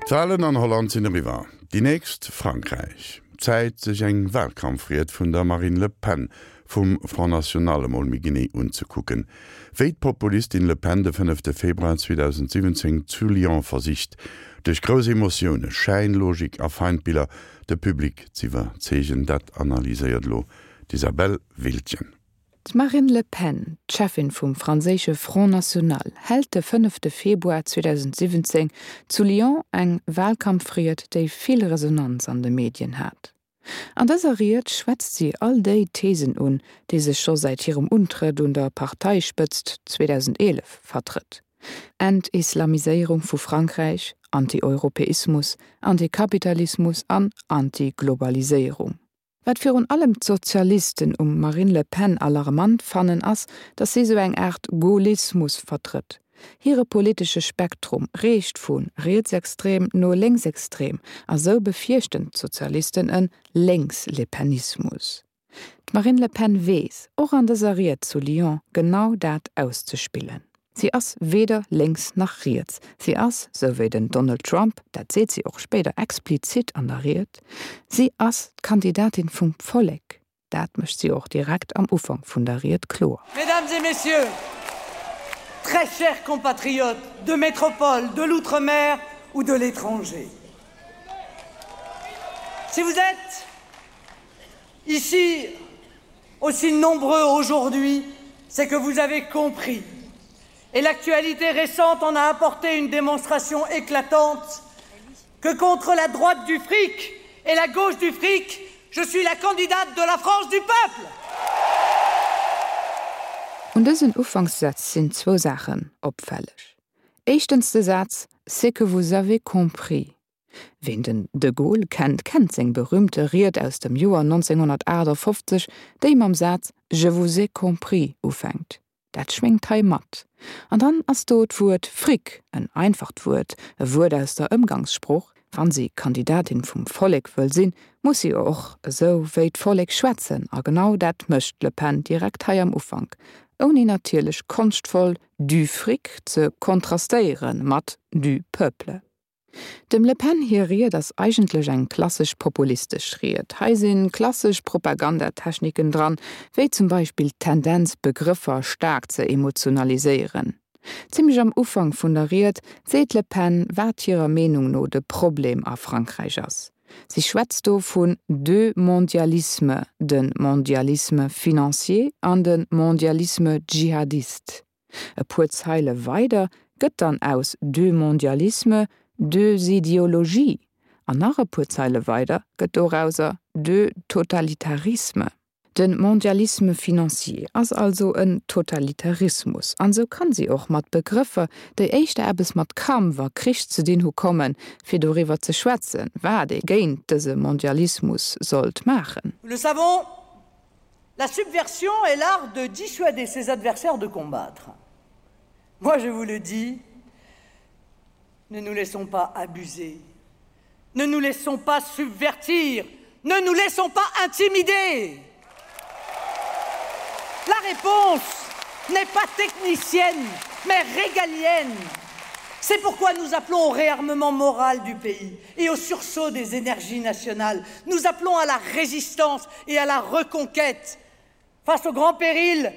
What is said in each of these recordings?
D'Walen an Holland sinn eriwwer, déi nächst Frankräich. Zäit sech eng Walkampfried vun der Marine Le Pen vum Front National emol méi genee unzekucken. Wéi d'Populistin Le Pen de fënnefte Februar 2017 zu Lyon versicht, duerch grouss Emotioune, Schäinlogik a Feindbiller de Public z'iwwerzeegen, dat analyséiert elo d'Isabelle Wiltgen. D'Marine Le Pen, d'Cheffin vum franséische Front National, hält de fënnefte Februar 2017 zu Lyon eng Walkampfried, déi vill Resonanz an de Medien hat. An dëser Ried schwätzt si all déi Thesen un, déi se scho säit hirem Untrëtt un der Parteispëtzt 2011 vertrëtt, Entislamiséierung vu Frankräich, Anti-Europäismus, Antikapitalismus an Antiglobaliséierung. Wat virun allem d'Sozialisten um Marine Le Pen alarmant fannen ass, datt si sou eng Aart Gaullismus vertrëtt. Hire politesche Spektrum reecht vu rietsextrem no lénksextrem a sou befierchten d'Sozialisten e Lénks-Lepenismus. D'Marine Le Pen weess, och an dëser Ried zu Lyon, genau dat auszespillen. Si ass weder lénks nach riets. Si ass, sou wéi den Donald Trump, dat seet si och spéider explizit an der Ried, si ass d'Kandidatin vum Vollek. Dat mécht si och direkt am Ufank vun der Ried kloer. Mesdames et Messieurs, très chers compatriotes de métropole, de l'outre-mer ou de l'étranger, si vous êtes ici aussi nombreux aujourd'hui, c'est que vous avez compris et l'actualité récente en a apporté une démonstration éclatante que contre la droite du fric et la gauche du fric, je suis la candidate de la France du peuple. Un dësen Ufankssätz sinn zwou Saachen opfälleg. Éischtens de Saz C'est que vous avez compris. Ween den de Gaulle kennt, kennt seng berühmte Ried aus dem Joer 1958, déi mam Saz Je vous ai compris ufänkt. Dat schwéngt hei mat. An dann ass do d'Wuert Fric, en einfacht Wuert, e Wuert aus der Ëmgangssprooch. Wann si Kandidatin vum Vollek wëll sinn, muss si och esou wéi d'Vollek schwätzen. A genau dat mécht d'Le Pen direkt hei am Ufank, ouni natierlech konschtvoll du fric ze kontrastéiere mat du peuple. Dem Le Pen hir Ried ass eigentlech eng klassesch populistesch Ried. Hei si klassesch Propagandatechniken dran, wéi zum Beispill d'Tendenz Begrëffer staark ze emotionaliséieren. Zimmlech am Ufank vun der Ried seet d'Le Pen, wat hirer Meenung no de Problem a Frankräich ass. Si schwätzt do vun deux mondialismes, de Mondialisme financier an de Mondialisme djihadiste. E puer Zeile weider gëtt dann aus deux mondialismes deux idéologies an nach e puer Zeile weider gëtt dorauser deux totalitarismes. De Mondialisme financier ass also en Totalitarismus an esou kann si och mat Begrëffer, déi éischter eppes mat Kampf a Krich ze dinn hu kommen, fir doriwwer ze schwätzen, wat ee géint dëse Mondialismus sollt maachen. Nous le savons, La subversion est l'art de dissuader ses adversaires de combattre. Moi, je vous le dis, ne nous laissons pas abuser, ne nous laissons pas subvertir, ne nous laissons pas intimider. La réponse n'est pas technicienne, mais régalienne. C'est pourquoi nous appelons au réarmement moral du pays et au sursaut des énergies nationales. Nous appelons à la résistance et à la reconquête. Face au grand péril,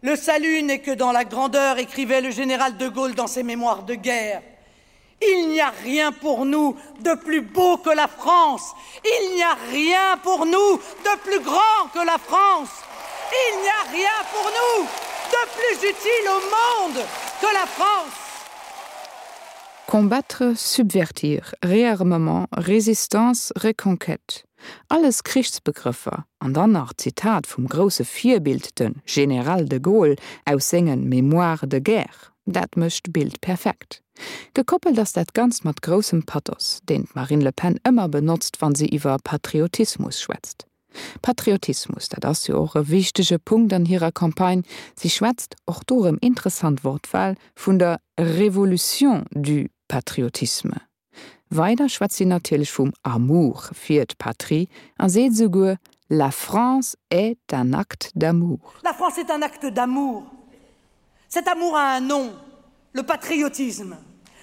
le salut n'est que dans la grandeur, écrivait le général de Gaulle dans ses mémoires de guerre. Il n'y a rien pour nous de plus beau que la France. Il n'y a rien pour nous de plus grand que la France. Il n'y a rien pour nous de plus utile au monde que la France. Combattre, subvertir, réarmement, résistance, reconquête, alles Krichsbegrëffer, an dann nach d'Zitat vum grousse Virbild, de General de Gaulle, aus senge Mémoires de guerre, dat mécht d'Bild perfekt. Gekoppelt ass dat Ganzt mat groussem Pathos, deen d'Marine Le Pen ëmmer benotzt, wa si iwwer Patriotismus schwätzt. Patriotismus, dat ass jo och e wichtege Punkt an hirer Campagne. Si schwätzt, och do erëm interessant Wortwahl, vun der Révolution du patriotisme. Weider schwätzt si natierlech vum Amour fir d'Patrie a seet esouguer, La France est un acte d'amour. La France est un acte d'amour. Cet amour a un nom, le patriotisme.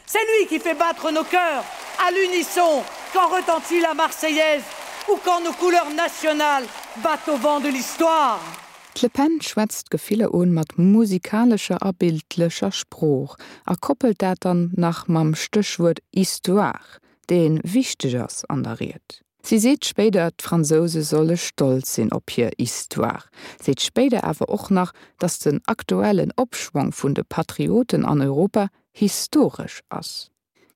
C'est lui qui fait battre nos cœurs. à l'unisson quand retentit la Marseillaise ou quand nos couleurs nationales battent au vent de l'histoire. D'Le Pen schwätzt d'Gefiller un mat musikalescher a bildlecher Sprooch a koppelt dat dann nach mam Stéchwuert Histoire, dee wichteg ass an der Ried. Si seet spéider, d'Fransouse solle stolz sinn op hir Histoire, seet spéider awer och nach, datt den aktuellen Opschwong vun de Patrioten an Europa historesch ass.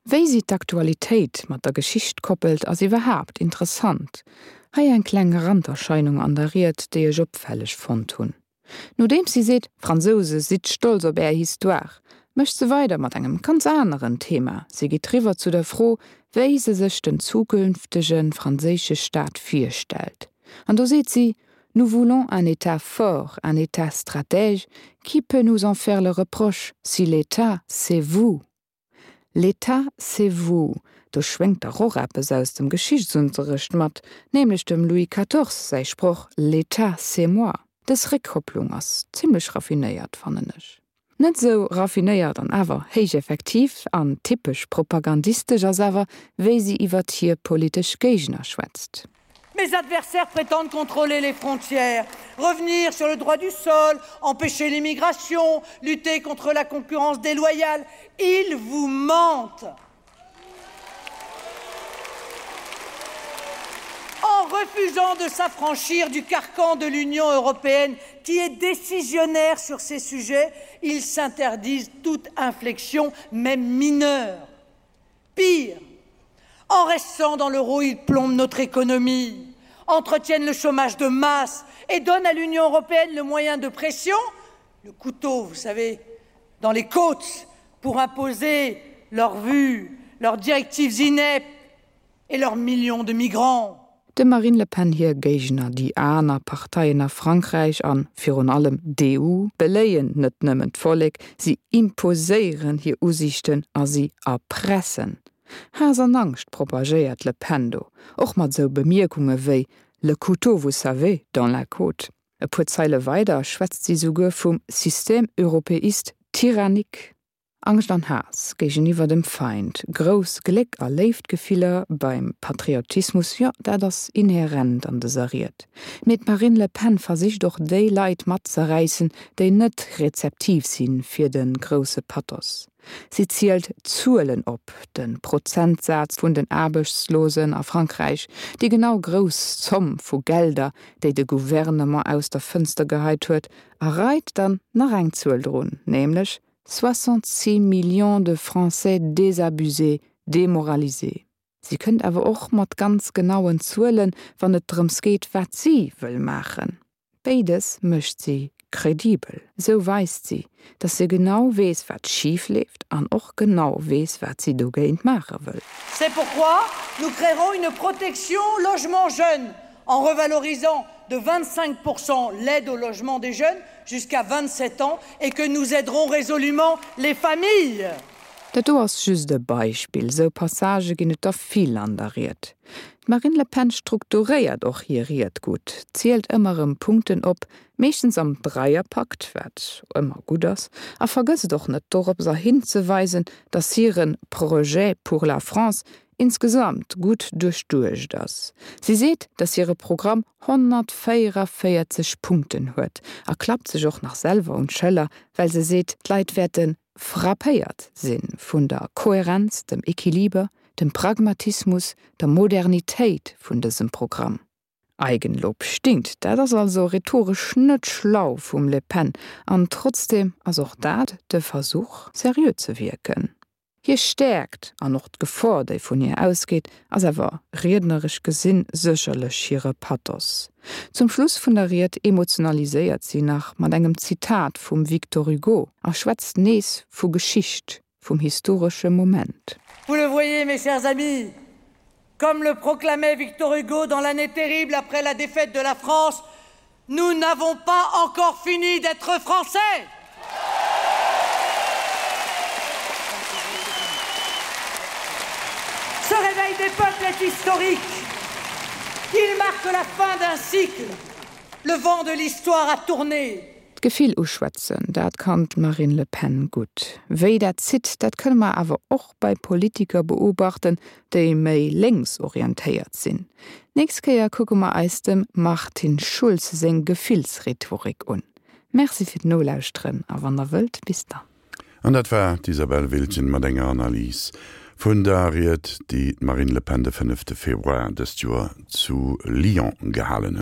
Wéi si d'Aktualitéit mat der Geschicht koppelt, ass iwwerhaapt interessant. Hei eng kleng Randerscheinung an der Ried, déi ech opfälleg fonnt hunn. Nodeems si seet, Fransouse, sidd stolz op är Histoire, mécht se weider mat engem ganz aneren Thema. Si geet riwwer zu der Fro, wéi se sech den zukünftege franséische Staat virstellt. An do seet si, Nous voulons un État fort, un État stratège, qui peut nous en faire le reproche, si l'État, c'est vous? L'État, c'est vous, do schwéngt dach och eppes aus dem Geschichtsunterrecht mat, nämlech dem Louis quatorze säi Sproch L'État, c'est moi. Dës Réckkopplung ass zimmlech raffinéiert, fannen ech. Net esou raffinéiert an awer héich effektiv an typesch propagandistesch ass awer, wéi si iwwert hir politesch Géigner schwätzt. Mes adversaires prétendent contrôler les frontières, revenir sur le droit du sol, empêcher l'immigration, lutter contre la concurrence déloyale. Ils vous mentent. En refusant de s'affranchir du carcan de l'Union européenne qui est décisionnaire sur ces sujets, ils s'interdisent toute inflexion, même mineure. Pire, en restant dans l'euro, ils plombent notre économie, entretiennent le chômage de masse et donnent à l'Union européenne le moyen de pression, le couteau, vous savez, dans les côtes pour imposer leurs vues, leurs directives ineptes et leurs millions de migrants. Dem Marine Le Pen hir Géigner, déi aner Parteien a Frankräich an virun allem d'EU, beléien net nëmmen d'Vollek, si imposéieren hir Usiichten a si erpressen. Haass an Angscht propagéiert d'Le Pen do, och mat esou Bemierkunge wéi Le couteau, vous savez, dans la côte. E puer Zeile weider schwätzt si souguer vum Système européiste tyrannique. Angscht an Haass géigeniwwer dem Feind, grouss Gléck a Léiftgefiller beim Patriotismus, jo, dat ass inhärent an dëser Ried. Mee d'Marine Le Pen versicht och déi Leit matzeräissen, déi net rezeptiv si fir de grousse Pathos. Si zielt Zuelen op, de Prozentsaz vun den Aarbechtslosen a Frankräich, déi genau grouss Zomm vu Gelder, déi de Gouvernement aus der Fënster geheit huet, a reit dann nach eng Zuel drun, nämlech 66 millions de Français désabusés, démoralisés. Si kënnt awer och mat ganz genauen Zuelen, wann et drëms geet, wat si wëll maachen. Béides mécht si kredibel. Esou weist si, datt se genau weess, wat schif leeft an och genau weess, wat si dogéint maache wëll. C'est pourquoi nous créerons une protection logement jeunes en revalorisant de 25% l'aide au logement des jeunes jusqu'à 27 ans et que nous aiderons résolument les familles. Dat do ass just e Beispill, sou Passagë ginn et der vill an der Ried. D'Marine Le Pen strukturéiert och hir Ried gutt, zielt ëmmer erëm Punkten op, meeschtens am Dreierpakt, wat ëmmer gutt ass, a vergësst och net doropser hinzeweisen, datt hire Projet pour la France insgesamt gutt duerchduecht ass. Si seet, datt hire Programm 144 Punkten huet a klappt sech och nach selwer un d'Schëller, well se seet, d'Leit wäerte frappéiert si vun der Kohärenz, dem Equiliber, dem Pragmatismus, der Modernitéit vun dësem Programm. Eigenlob stinkt, dat ass also rhetoresch net schlau vum Le Pen an trotzdeem ass och dat de Versuch, seriö ze wierken. Hir Stäerkt, an och d'Gefor, déi vun hir ausgeet, ass awer, riedneresch gesinn, sécherlech hire Pathos. Zum Schluss vun der Ried emotionaliséiert si nach mat engem Zitat vum Victor Hugo a schwätzt nees vu Geschicht, vum historesche Moment. Vous le voyez, mes chers amis, comme le proclamait Victor Hugo dans l'année terrible après la défaite de la France, nous n'avons pas encore fini d'être français. Ce réveil des peuples est historique. Il marque la fin d'un cycle. Le vent de l'histoire a tourné. D'Gefill uschwätzen, dat kann d'Marine Le Pen gutt. Wéi dat zitt, dat kënne mer awer och bei Politiker beobachten, déi méi lénks orientéiert sinn. Nächst Kéier kucke mer eis dem Martin Schulz seng Gefillsrhetorik un. Merci fir d'Nolauschteren a wann der wëllt, bis dann. An dat war d'Isabelle Wiltgen mat enger Analys vun der Ried, déi d'Marine Le Pen de fënnefte Februar dëst Joer zu Lyon gehalen huet.